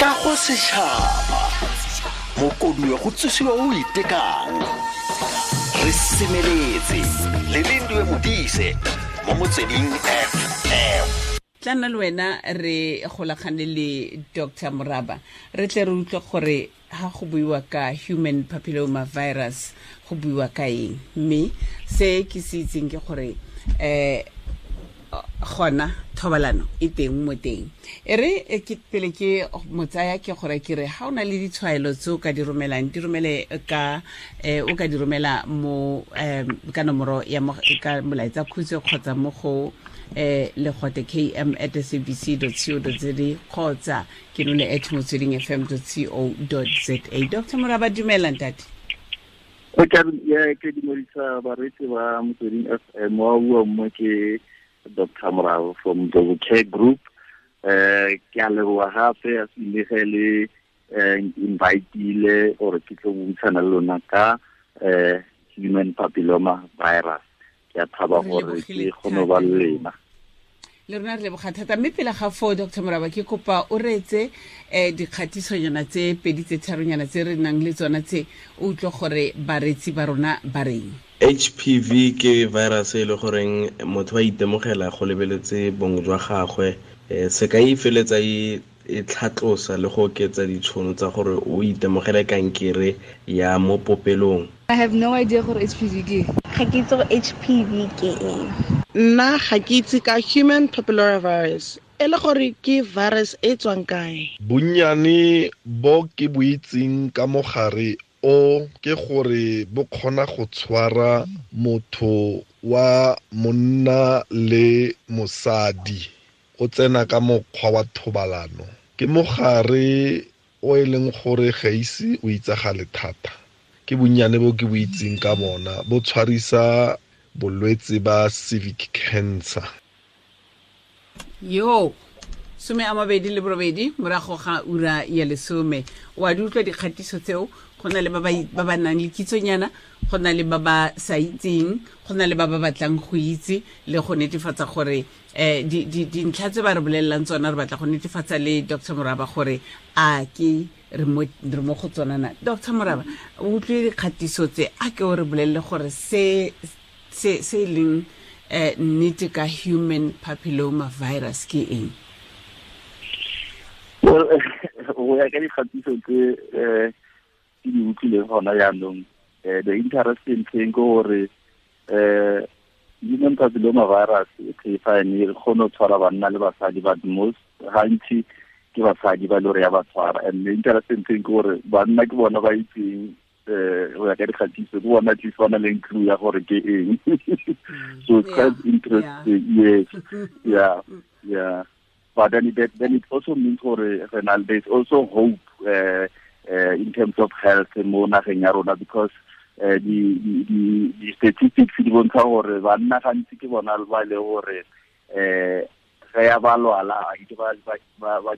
Kago setšhaba mokoduwe go tsosiwa o itekang re semeletse le Lindiwe Modise mo Motsweding FM. Tla nna le wena re golagane le Dr Moraba, re tle re utlwe gore ha go buiwa ka human papilloma virus go buiwa ka eng. Mme se ke se itseng ke gore gona thobalano e teng mo teng. E re ke pele ke motsaya ke gore ke re ha o na le ditshwaelo tse o ka di romelang, di romele ka o ka di romela mo ka nomoro ya ka molaetsa khutshwe kgotsa mo go legote km@sabc.co.za kgotsa ke none @motswedingfm.co.za. Dr Moraba, dumela ntate. Ke dumedisa bareetsi ba Motsweding FM. Wa bua mo ke Dr Moraba from the Care Group. Ke a leboga gape a se le inviteile gore ke tlo buisana le lona ka human papilloma virus. Ke a thaba gore ke kgone ba le lena. Le rona re leboga thata. Mme pele ga foo, Dr Moraba, ke kopa o reetse dikgatisonyana tse pedi tse tharonyana tse re nang le tsona tse, o utlwe gore bareetsi ba rona ba reng. HPV ke virus e le goreng motho a itemogela go lebeletse bong jwa gagwe, sekai e feletsa e tlhatlosa le go oketsa ditšhono tsa gore o itemogele kankere ya mo popelong. I have no idea gore HPV ke. Ga ke itse gore HPV ke eng. Nna ga ke itse ka human papilloma virus. E le gore ke virus e tswang kae? Bonnyane bo ke bo itseng ka mogare o ke gore bo kgona go tshwara motho wa monna le mosadi, o tsena ka mokgwa wa thobalano. Ke mogare o e leng gore ga ise o itsagale thata. Ke bonnyane bo ke bo itseng ka bona, bo tshwarisa bolwetse ba cervical cancer. Yo, 28 morago ga ura ya 10. Wa di utlwa dikgatiso tseo, go na le ba ba nang le kitsonyana, go na le ba ba sa itseng, go na le ba ba batlang go itse le go netefatsa gore dintlha tse ba re bolelelang tsona, re batla go netefatsa le Dr Moraba gore a ke re mo go tsona na. Dr Moraba, o utlwile dikgatiso tse, a ke o re bolelele gore se se leng nnete ka human papilloma virus ke eng? Well, go ya ka dikgatiso tse ke di utlwileng gona jaanong, the interesting thing ke gore human papilloma virus e fine e kgone go tshwara banna le basadi, but most gantsi ke basadi ba le gore ya ba tshwara. And the interesting thing ke gore banna ke bona ba itseng, go ya ka dikgatiso, ke bona at least ba na le clue ya gore ke eng. So it's quite interesting. Yes. Yeah. Yeah. But then it also means gore there's also hope in terms of health mo nageng ya rona, because the statistics di bontsha gore banna gantsi ke bona ba le gore ge ya ba lwala ke ba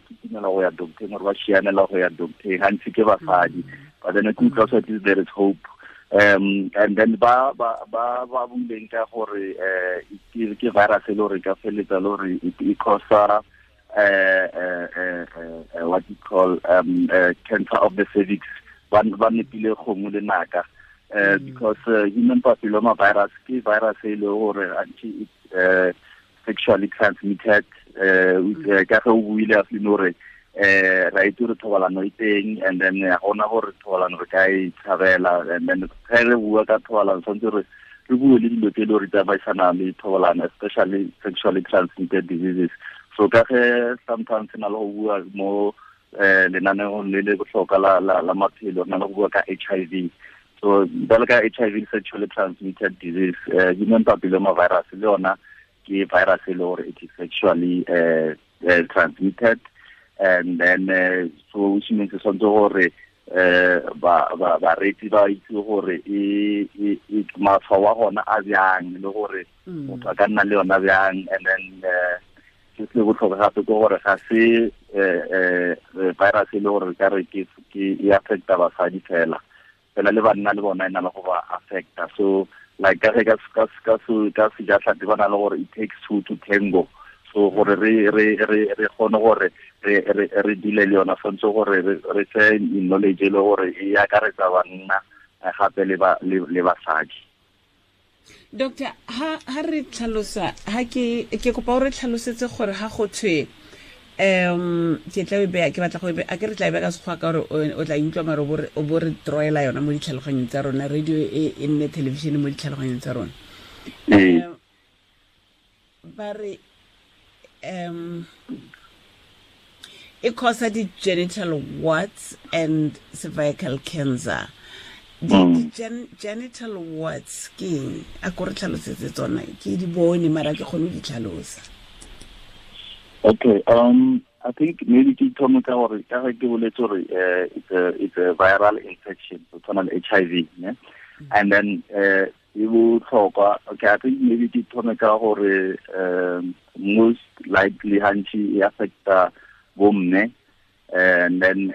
kitimela go ya docteng or ba šianela go ya docteng, gantsi ke basadi. But then ke utlwa at least there is hope. And then ba buileng ka gore ke virus e le gore ka feletsa le gore e causa what you call cancer of the cervix. Ba nepile kgomo le naka, because human papilloma virus ke virus e le gore it's sexually transmitted. Ka ge o buile a feel gore ra itse gore thobalano e teng, and then ga gona gore thobalano re ka e tshabela. And then ge re bua ka thobalano tshwanetse re bue le dilo tse e le gore di tsamaisana le thobalano, especially sexually transmitted diseases. So ka ge sometimes na le go bua mo lenaneong le le botlhokwa la maphelo, re na le go bua ka HIV. So bjalo ka HIV sexually transmitted disease, human papilloma virus le yona ke virus e le gore it is sexually transmitted. And then so which means tshwanetse gore bareetsi ba itse gore e matshwao a gona a bjang, le gore motho a ka nna le yona bjang. And then se se botlhokwa gape ke gore ga se virus e le gore ka re ke e affecta basadi fela, fela le banna le bona e na le go ba affecta. So like ka sejatlhapi ba na le gore it takes two to tango. So gore re kgone gore re dile le yona, tshwanetse gore re tse knowledge le gore e akaretsa banna gape le basadi. Doctor, ha re tlhalosa, ha ke kopa o re tlhalosetse gore ha go thwe ke tla be ke batla go be a ke re tla be ka sekgwa ka gore o tla utlwa mare o bo re troela yona mo ditlhaloganyong tsa rona, radio e nne television mo ditlhaloganyong tsa rona. Ba re e causa di genital warts and cervical cancer. Genital warts ke a ko re tlhalosetse tsona, ke di bone mara ke kgone di tlhalosa. Okay, I think maybe ke thome ka gore ka ge ke boletse gore it's a viral infection, so tshwana le HIV, ne? And then e botlhokwa. Okay, I think maybe ke thome ka gore most likely hantsi e affecta bomme, and then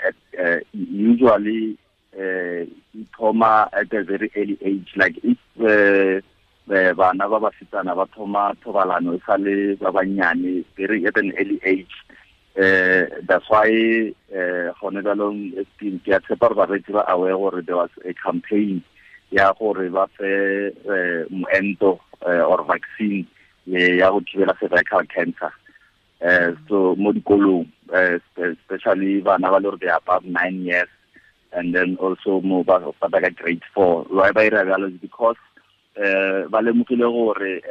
usually e thoma at a very early age, like if bana ba basetsana ba thoma thobalano e sale ba bannyane, very at an early age. That's why gone jaanong ke a tshepa gore bareetsi ba aware gore there was a campaign ya gore ba fe moento or vaccine ya go thibela cervical cancer. So mo dikolong, especially bana ba le gore they are above 9 years, and then also mo ba ka grade 4. Why ba ira bjalo is because ba lemogile gore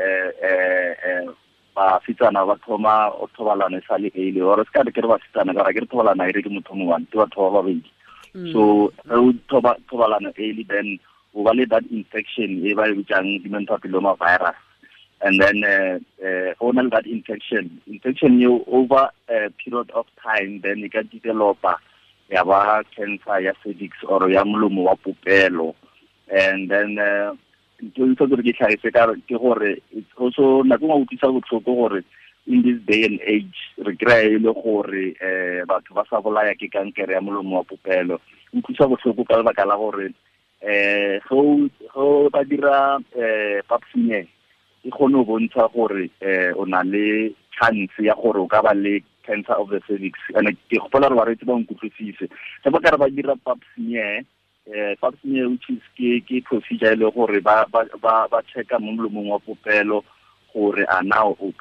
basetsana ba thoma o thobalano e sa le early, or se ka re ke re basetsana ka ra ke re thobalano e re ke motho mo one, ke batho ba babedi. So o thobalano early, then o ba le that infection e ba e bitsang human papilloma virus, and then o na le that infection eo over a period of time, then e ka developa ya ba cancer ya cervix or ya molomo wa popelo. And then ntho tse ke tlhagise ka ke gore it's also nako nngwe utlwisa botlhoko gore in this day and age re kry-a e le gore batho ba sa bolaya ke kankere ya molomo wa popelo. Utlwisa botlhoko ka lebaka la gore go ba dira pap smear e kgone go bontsha gore o na le chance ya gore o ka ba le cancer of the cervix. And ke gopola gore bareetsi ba nkutlwisise ge ba ka re ba dira pap smear, pap smear which is ke procedure e le gore ba checka mo molomong wa popelo gore a na o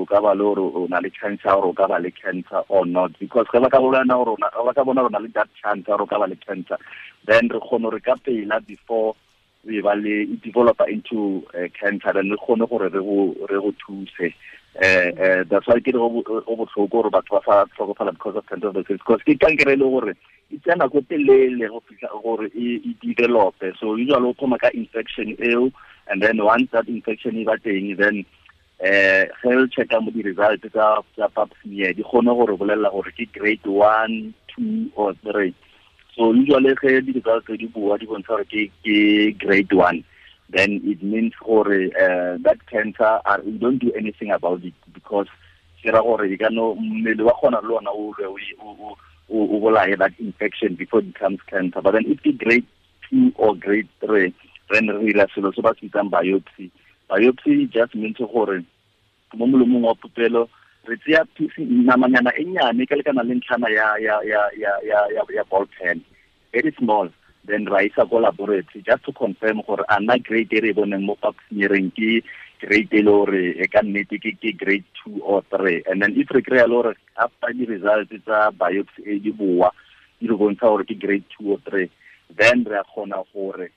ka ba le gore o na le chance ya gore o ka ba le cancer or not, because ge ba ka bona gore ba ka bona gore o na le that chance ya gore o ka ba le cancer, then re kgone gore ka pela before we ba le developer into cancer, then re kgone gore re go thuse. That's why ke re go botlhoko gore batho ba sa tlhokofala because of cancer of the cervix, because ke kankere e le gore e tsaya nako telele go fitlha gore e develope. So usually o thoma ka infection eo, and then once that infection e ba teng, then ge o checka mo di-results tsa pap smear di kgone gore bolelela gore ke grade 1, 2 or 3. So usually ge di-results di bua di bontsha gore ke grade 1, then it means gore that cancer, we don't do anything about it, because ke ra gore e ka no mmele wa kgona le ona o lwe o bolaye that infection before it becomes cancer. But then if it's grade 2 or grade 3, then re dira selo se ba se bitsang biopsy. Biopsy just means gore mo molomong wa popelo re tseya namanyana e nnyane ka lekana le ntlhana ya ball pen, very small, then ra isa ko laboratory just to confirm gore a na grade e re boneng mo pap smearing ke grade e le gore e ka nnete ke grade 2 or 3. And then if re kry-a le gore after di-results tsa biopsy e di boa di re bontsha gore ke grade 2 or 3, then re a kgona gore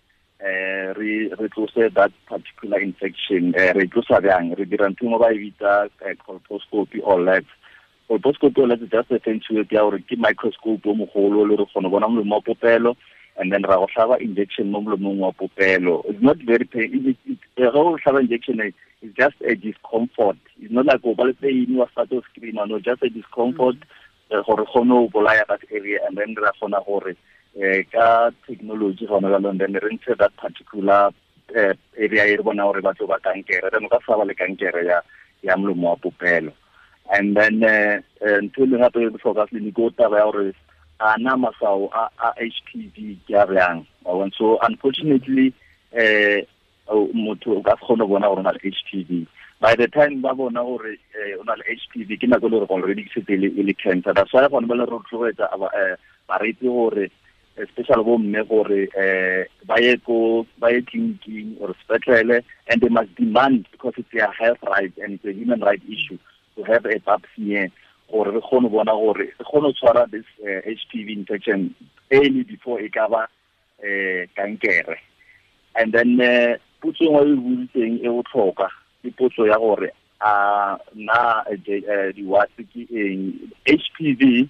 re tlose that particular infection. Re tlosa bjang? Re dira ntho engwe ba e bitsa colposcopy or labs. Colposcopy or labs is just a fancy word ya gore ke microscope o mogolo le re kgona go bona molomo wa popelo, and then ra go hlaba injection mo molomong wa popelo. It's not very pain. Ge o hlaba injection, it's just a discomfort. It's not like o ba le pain wa start to scream, no, just a discomfort gore kgone go bolaya that area, and then ra kgona gore ka technology gona jaanong then re ntshe that particular area e re bona gore batho ba kankere, then o ka sa ba le kankere ya molomo wa popelo. And then ntho e leng gape e botlhokwa tleliniki o taba ya gore a na maswao a HPV ke a bjang. So unfortunately motho o ka se kgone go bona gore o na le HPV, By the time ba bona gore o na le HPV, ke nako e le gore already ke setse e le cancer. That's why gone ba le rotloetsa bareetsi gore, especially bo mme, gore ba ye ko ba ye tleliniking or sepetlele, and they must demand, because it's their health right and it's a human right issue to have a pap smear, gore re kgone bona gore re kgone go tshwara this HPV infection early before e ka ba kankere. And then potso nngwe e boditseng e botlhokwa ke potso ya gore a na di-warts ke eng. HPV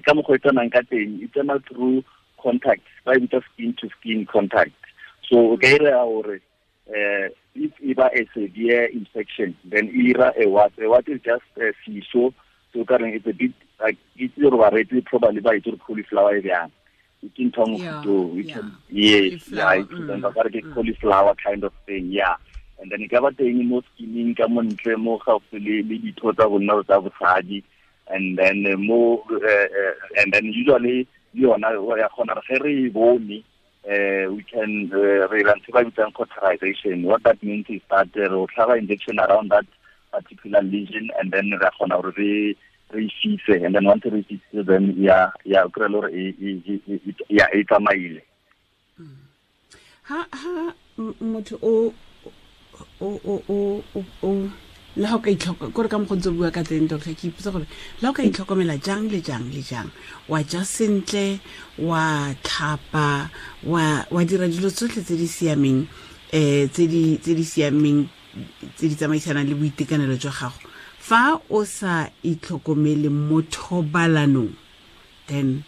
ka mokgwa e tsenang ka teng, e tsena through contact, ba e bitsa skin to skin contact. So o ka ira gore if e ba a severe infection, then e ira a wart. A wart is just a seso, so ka reng it's a bit like, itse gore bareetsi probably ba itse gore cauliflower e bjang, ke ntho ya mofuta oo. Yes, yeah, ba ka re ke cauliflower kind of thing, yeah. And then e ka ba teng mo skinning ka montle mo gaufi le ditho tsa bonna tsa bosadi, and then mo and then usually le yona ya kgona re ge re e bone, we can re ira ntho e ba bitsang cauterization. What that means is that re o tlhaba injection around that particular lesion, and then re kgona gore re e fise, and then once re e fisitse, then ya o kry-e le gore ya e tsamaile. Ha motho o o o o o le ga o ka itlhoka kore ka mokgwa ntse o bua ka teng, doctor, ke ipotsa gore le ga o ka itlhokomela jang le jang le jang, wa ja sentle, wa tlhapa, wa dira dilo tsotlhe tse di siameng, tse di siameng, tse di tsamaisanang le boitekanelo jwa gago, fa o sa itlhokomele mo thobalanong, then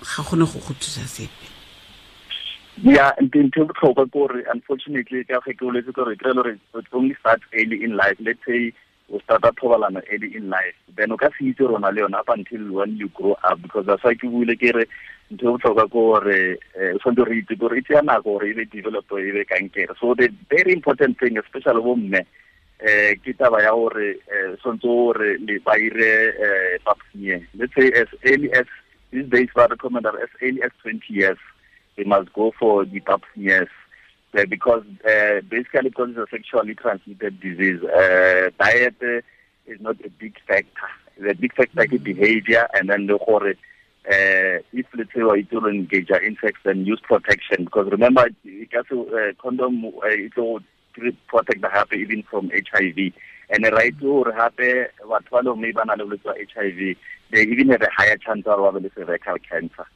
ga gone go go thusa sepe. Yeah, ntho e botlhokwa ke gore unfortunately, ka ge ke boletse gore kry-e gore it only starts early in life. Let's say o starta thobalano early in life, then o ka se itse rona le yona up until when you grow up, because that's why ke buile ke re ntho e botlhokwa ke gore o tshwanetse re itse gore e tsaya nako gore e be develop, e be kankere. So the very important thing, especially bo mme, ke taba ya gore tshwanetse gore le ba ire pap smear. Let's say as early as these days, ba recommend as early as 20 years they must go for the pap smears, because basically because it's a sexually transmitted disease, diet is not a big factor. The big factor is behavior, and then the gore if let's say you to engage in sex, then use protection, because remember condom it will protect the happy even from HIV. And the right to happy what follow maybe HIV, they even have a higher chance of having cervical cancer.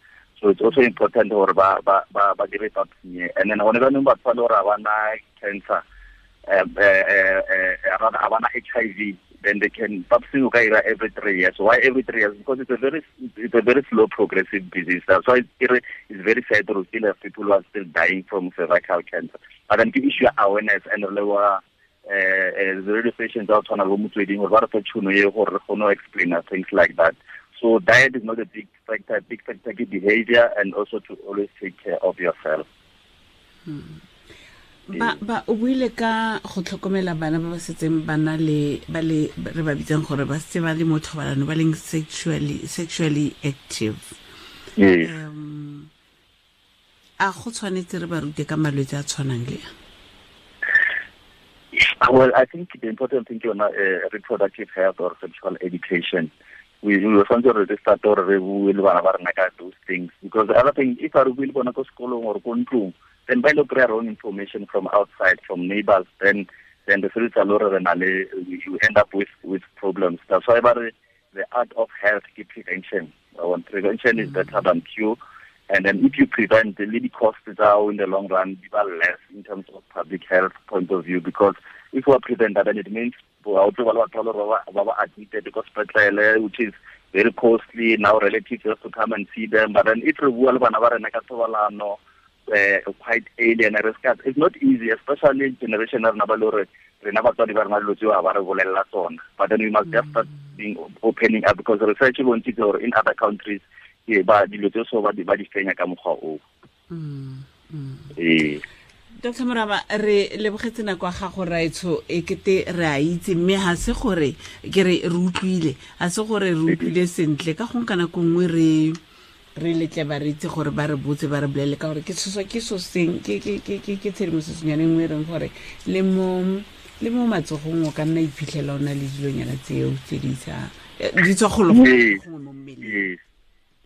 So it's also important gore ba ba ba ba dire pap smear. And then gone ba batho ba le gore ba na cancer, rather ba na HIV, then they can pap smear o ka ira every 3 years. Why every 3 years? Because it's a very slow progressive disease. That's why it's very sad to still have people who are still dying from cervical cancer. But then ke issue awareness and re leboga the radio stations out tshwana bo Motsweding gore ba re fe tšhono e gore re kgone go explain things like that. So diet is not a big factor. Big factor is behavior, and also to always take care of yourself. Ba o buile ka go tlhokomela bana ba ba setseng ba na le ba le re ba bitsang gore ba setse ba le mo thobalano, ba leng sexually active. Yes. A go tshwanetse re ba rute ka malwetse a tshwanang le a? Well, I think the important thing is reproductive health or sexual education. We were tshwanetse re start gore re bue le bana ba rena ka those things, because the other thing, if re bue le bona ko sekolong or ko ntlong, then ba ile kry-a wrong information from outside, from neighbors, then the feletsa le gore re na le, you end up with problems. That's why ba re the art of health ke prevention. Prevention is better than cure. And then if you prevent, the leading costs are in the long run be less in terms of public health point of view, because if we are prevent that, then it means admitted because which is very costly now, relatives have to come and see them. But then if we quite alien, it's not easy, especially generation but then we must just start being opening up, because research in other countries ba dilo tse so ba di fenya ka mokgwa o. Dr. Moraba, re lebogetse nako ya gago raetsho, e kete re a itse, mme ha se gore ke re re utlwile, ha se gore re utlwile sentle, ka gongwe ka nako nngwe re Re letle bareetsi gore ba re botse, ba re bolele, ka gore ke tshoswa ke so seng ke tshedimosetsonyane nngwe e reng gore le mo matsogong o ka nna iphitlhela o na le dilonyana tseo tse di sa di tswa golo gongwe mo mmeleng.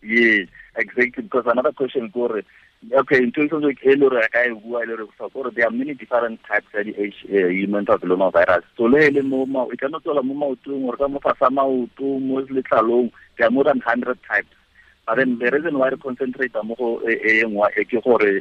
Yes, exactly. Because another question, gore, okay, in terms of there are many different types of the human papilloma virus. So, le mo e ka no tswela mo maotong or ka mo fasa maoto, mo letlalong, there are more than 100 types. But then the reason why we concentrate mo go e nngwe e ke gore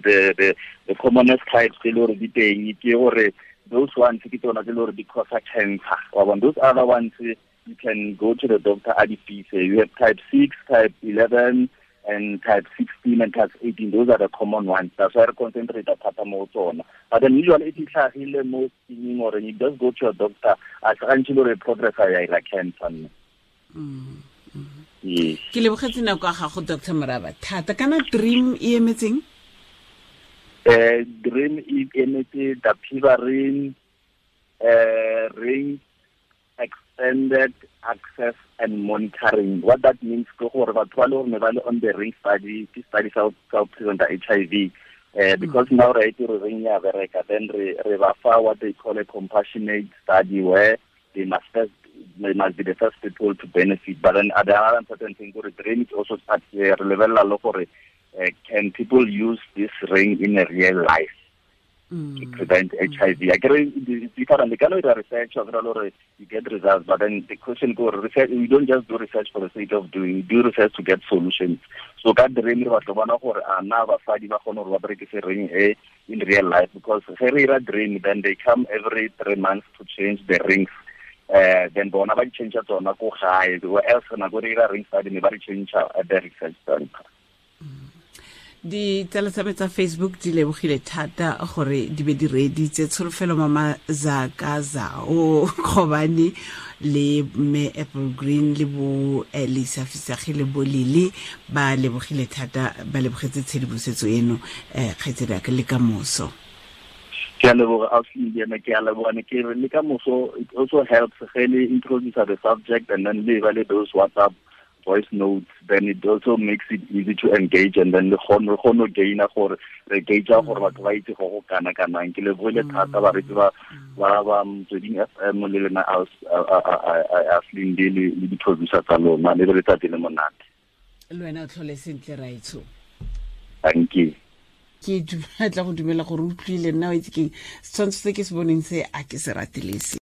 the commonest types tse le gore di teng ke gore those ones ke tsona tse le gore di cause cancer. Wa bona, those other ones you can go to the doctor a di fise. You have type 6, type 11, and type 16 and type 18. Those are the common ones. That's why I concentrate thata mo tsona. But then usually if it's tlhagile mo skinning or you just go to your doctor, a gantsi le progress ya ira cancer. Yes. Ke lebogetse nako ya gago, Dr. Moraba, thata. Kana DREAM e emetseng? DREAM e emetse dapivirine ring extended access and monitoring. What that means ke gore batho ba le gore ne ba le on the ring study, ke study sa go prevent HIV. Because now right re ring ya bereka, then re ba fa what they call a compassionate study where they must be the first people to benefit. But then the other important thing gore DREAM is also start re lebelela le gore can people use this ring in a real life to prevent HIV. I get it's different. They cannot do research or you get results, but then the question go research. We don't just do research for the sake of doing. We do research to get solutions. So ka DREAM re batla bona gore a na basadi ba kgone gore ba berekise ring e in real life, because ge re ira DREAM, then they come every 3 months to change the rings. Then bona ba di change tsona ko gae, where else nako re ira ring study ne ba di change at the research center. Ditsala tsa me tsa Facebook di lebogile thata gore di be di reeditse Tsholofelo Mama Zaka Zao Kgobane le mme Apple Green le bo Lisa Fisage le bo Lili, ba lebogile thata, ba lebogetse tshedimosetso eno. Kgaitsedi ya ka, le ka moso. Ke a leboga, ausi Ena, ke a leboga. Ne ke re le ka moso, it also helps ge le introduce the subject and then le ba le those WhatsApp voice notes, then it also makes it easy to engage, and then le kgone go gaina gore re gauge gore batho ba itse go go kana kanang. Ke lebogile thata bareetsi ba ba Motsweding FM le lena Ausi le di-producer tsa lona, le letsatsi le monate. Le wena o tlhole sentle, raetsho. Thank you. Ke tla go dumela gore o utlwile nna o itse keng setshwantsho se ke se boneng se a ke se ratelese.